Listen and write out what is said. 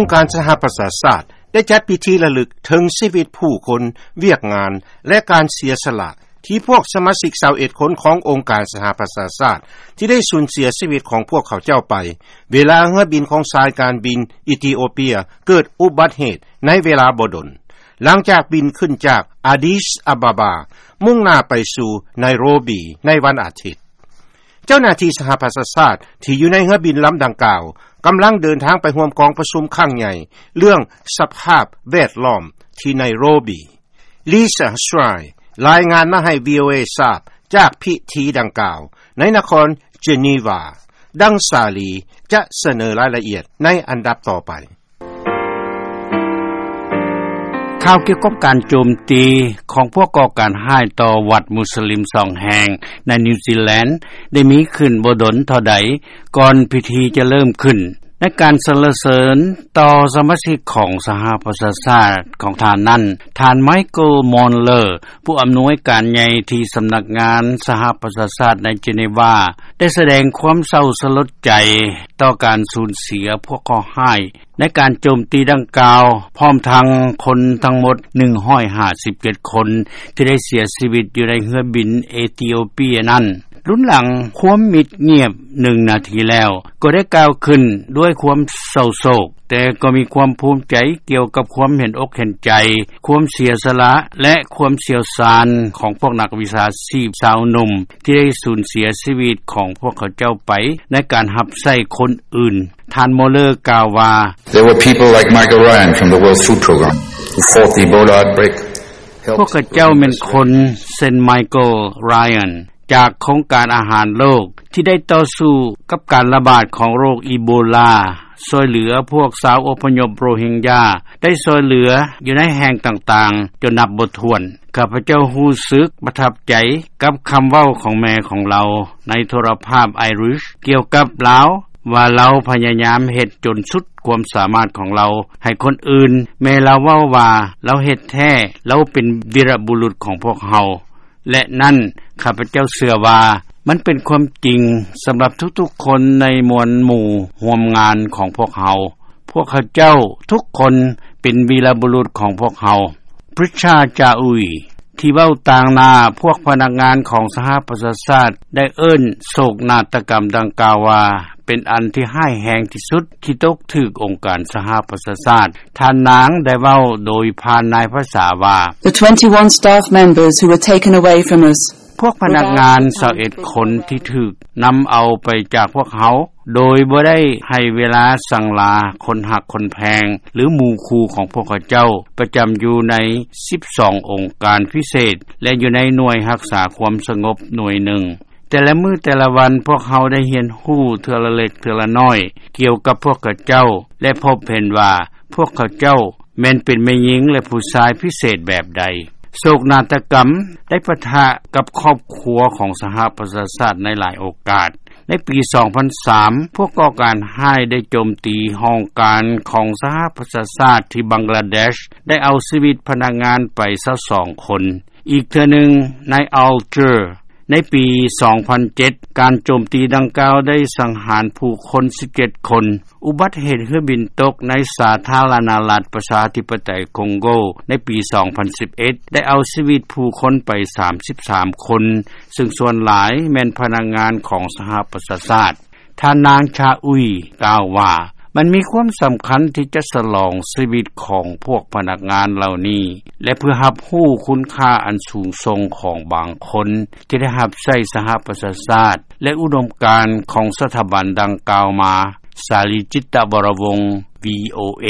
ອົງການສະຫະປະຊາຊາດ ໄດ້ຈັດພິທີລະລຶກເຖິງຊີວິດຜູ້ຄົນ, ວຽກງານ ແລະ ການເສຍສະຫຼະ ທີ່ພວກສະມາຊິກຊາວເອັດຄົນຂອງອົງການສະຫະປະຊາຊາດ ທີ່ໄດ້ສູນເສຍຊີວິດຂອງພວກເຂົາເຈົ້າໄປ ເວລາເຮືອບິນຂອງສາຍການບິນອີທິໂອເປຍເກີດອຸບັດເຫດໃນເວລາບໍ່ດົນ ຫຼັງຈາກບິນຂຶ້ນຈາກອາດີສອາບາບາ ມຸ່ງໜ້າໄປສູ່ໄນໂຣບີໃນວັນອາທິດ. ເຈົ້າໜ້າທີ່ສະຫະປະຊາຊາດທີ່ຢູ່ໃນເຮືອບິນລຳດັ່ງກ່າວ ກຳລັງເດີນທາງໄປຮ່ວມກອງປະຊຸມຄັ້ງໃຫຍ່ເລື່ອງສະພາບແວດລ້ອມທີ່ໄນໂຣບີ. ລີຊາ ສະໄຕຣ ລາຍງານມາໃຫ້ ວີໂອເອ ຊາບຈາກພິທີດັ່ງກ່າວໃນນະຄອນເຈນີວາ. ດັ່ງສາລີຈະສະເໜີລາຍລະອຽດໃນອັນດັບຕໍ່ໄປ. ຂ່າວກ່ຽວກັບການໂຈມຕີຂອງພວກກໍ່ການຮ້າຍຕໍ່ວັດມຸສລິມສອງແຫ່ງໃນນິວຊີແລນ ໄດ້ມີຂຶ້ນບໍ່ດົນເທົ່າໃດ ກ່ອນພິທີຈະເລີ່ມຂຶ້ນ. ໃນການສັນລະເສີນຕໍ່ສະມາຊິກຂອງສະຫະປະຊາຊາດຂອງທ່ານນັ້ນ, ທ່ານ ໄມເຄິນ ມອນເລີ ຜູ້ອຳນວຍການໃຫຍ່ທີ່ສຳນັກງານສະຫະປະຊາຊາດໃນເຈນີວາ ໄດ້ສະແດງຄວາມເສົ້າສະຫຼົດໃຈຕໍ່ການສູນເສຍພວກເຄາະຮ້າຍ ໃນການໂຈມຕີດັ່ງກ່າວ, ພ້ອມທັງຄົນທັງໝົດໜຶ່ງຮ້ອຍຫ້າສິບເຈັດຄົນ ທີ່ໄດ້ເສຍຊີວິດຢູ່ໃນເຮືອບິນເອທິໂອເປຍນັ້ນ. ລຸນຫຼັງຄວາມມິດງຽບໜຶ່ງນາທີແລ້ວ ກໍໄດ້ກ່າວຂຶ້ນດ້ວຍຄວາມເສົ້າໂສກ, ແຕ່ກໍມີຄວາມພູມໃຈກ່ຽວກັບຄວາມເຫັນອົກເຫັນໃຈ, ຄວາມເສຍສະຫຼະ ແລະ ຄວາມຊ່ຽວຊານຂອງພວກນັກວິຊາຊີບຊາວໜຸ່ມ ທີ່ໄດ້ສູນເສຍຊີວິດຂອງພວກເຂົາເຈົ້າໄປໃນການຮັບໃຊ້ຄົນອື່ນ. ທ່ານ ໂມເລີ ກ່າວວ່າ, There were people like Michael Ryan from the World Food Programme who fought the Ebola outbreak, helped ພວກເຂົາເຈົ້າແມ່ນຄົນເຊັ່ນ ໄມເຄິນ ຣາຍອັນ ຈາກໂຄງການອາຫານໂລກ ທີ່ໄດ້ຕໍ່ສູ້ກັບການລະບາດຂອງໂລກອີໂບລາ, ຊ່ວຍເຫຼືອພວກຊາວອົບພະຍົບໂຣຮິງຢາ, ໄດ້ຊ່ວຍເຫຼືອຢູ່ໃນແຫ່ງຕ່າງໆຈົນນັບບໍ່ຖ້ວນ. ຂ້າພະເຈົ້າຮູ້ສຶກປະທັບໃຈກັບຄຳເວົ້າຂອງແມ່ຂອງລາວໃນໂທລະພາບໄອຣິຊ ກ່ຽວກັບລາວ ວ່າລາວພະຍາຍາມເຮັດຈົນສຸດຄວາມສາມາດຂອງລາວໃຫ້ຄົນອື່ນ. ແມ່ລາວເວົ້າວ່າ ລາວເຮັດແທ້, ລາວເປັນວີລະບຸລຸດຂອງພວກເຮົາ. ແລະ ນັ້ນ ຂ້າພະເຈົ້າເຊື່ອວ່າມັນເປັນຄວາມຈິງສຳລັບທຸກໆຄົນໃນມວນໝູ່ຮ່ວມງານຂອງພວກເຮົາ. ພວກເຂົາເຈົ້າທຸກຄົນເປັນວີລະບຸລຸດຂອງພວກເຮົາ. ປຣິຊາ ຈາອຸຍ ທີ່ເວົ້າຕາງໜ້າພວກພະນັກງານຂອງສະຫະປະຊາຊາດ ໄດ້ເອີ້ນໂສກນາດຕະກຳດັ່ງກ່າວວ່າ ເປັນອັນທີ່ຮ້າຍແຮງທີ່ສຸດທີ່ຕົກຖືກອົງການສະຫະປະຊາຊາດ. ທ່ານນາງໄດ້ເວົ້າໂດຍຜ່ານນາຍພາສາວ່າ, The twenty-one staff members who were taken away from us ພວກພະນັກງານຊາວເອັດຄົນທີ່ຖືກນຳເອົາໄປຈາກພວກເຮົາ ໂດຍບໍ່ໄດ້ໃຫ້ເວລາສັງລາຄົນຮັກຄົນແພງ ຫຼື ໝູ່ຄູ່ຂອງພວກເຂົາເຈົ້າ ປະຈຳຢູ່ໃນສິບສອງອົງການພິເສດ ແລະ ຢູ່ໃນໜ່ວຍຮັກສາຄວາມສະຫງົບໜ່ວຍໜຶ່ງ. ແຕ່ລະມື້ແຕ່ລະວັນ ພວກເຮົາໄດ້ຮຽນຮູ້ເທື່ອລະເລັກເທື່ອລະນ້ອຍກ່ຽວກັບພວກເຂົາເຈົ້າ ແລະ ພົບເຫັນວ່າພວກເຂົາເຈົ້າແມ່ນເປັນແມ່ຍິງ ແລະ ຜູ້ຊາຍພິເສດແບບໃດ. ໂສກນາດຕະກຳໄດ້ປະທະກັບຄອບຄົວຂອງສະຫະປະຊາຊາດໃນຫຼາຍໂອກາດ. ໃນປີສອງພັນສາມ ພວກກໍ່ການຮ້າຍໄດ້ໂຈມຕີຫ້ອງການຂອງສະຫະປະຊາຊາດທີ່ບັງກລາເດຊ ໄດ້ເອົາຊີວິດພະນັກງານໄປຊາວສອງຄົນ. ອີກເທື່ອໜຶ່ງ ໃນອາລເຈີ ໃນປີສອງພັນເຈັດ ການໂຈມຕີດັ່ງກ່າວໄດ້ສັງຫານຜູ້ຄົນສິບເຈັດຄົນ. ອຸບັດເຫດເຮືອບິນຕົກໃນສາທາລະນະລັດປະຊາທິປະໄຕຄົງໂກໃນປີສອງພັນສິບເອັດ ໄດ້ເອົາຊີວິດຜູ້ຄົນໄປສາມສິບສາມຄົນ, ເຊິ່ງສ່ວນຫຼາຍແມ່ນພະນັກງານຂອງສະຫະປະຊາຊາດ. ທ່ານນາງ ຊາອຸຍ ກ່າວວ່າ, ມັນມີຄວາມສຳຄັນທີ່ຈະສະຫຼອງຊີວິດຂອງພວກພະນັກງານເຫຼົ່ານີ້ ແລະ ເພື່ອຮັບຮູ້ຄຸນຄ່າອັນສູງສົ່ງຂອງບາງຄົນທີ່ໄດ້ຮັບໃຊ້ສະຫະປະຊາຊາດ ແລະ ອຸດົມການຂອງສະຖາບັນດັ່ງກ່າວມາ. ສາລີ ຈິດຕະວໍລະວົງ ວີໂອເອ.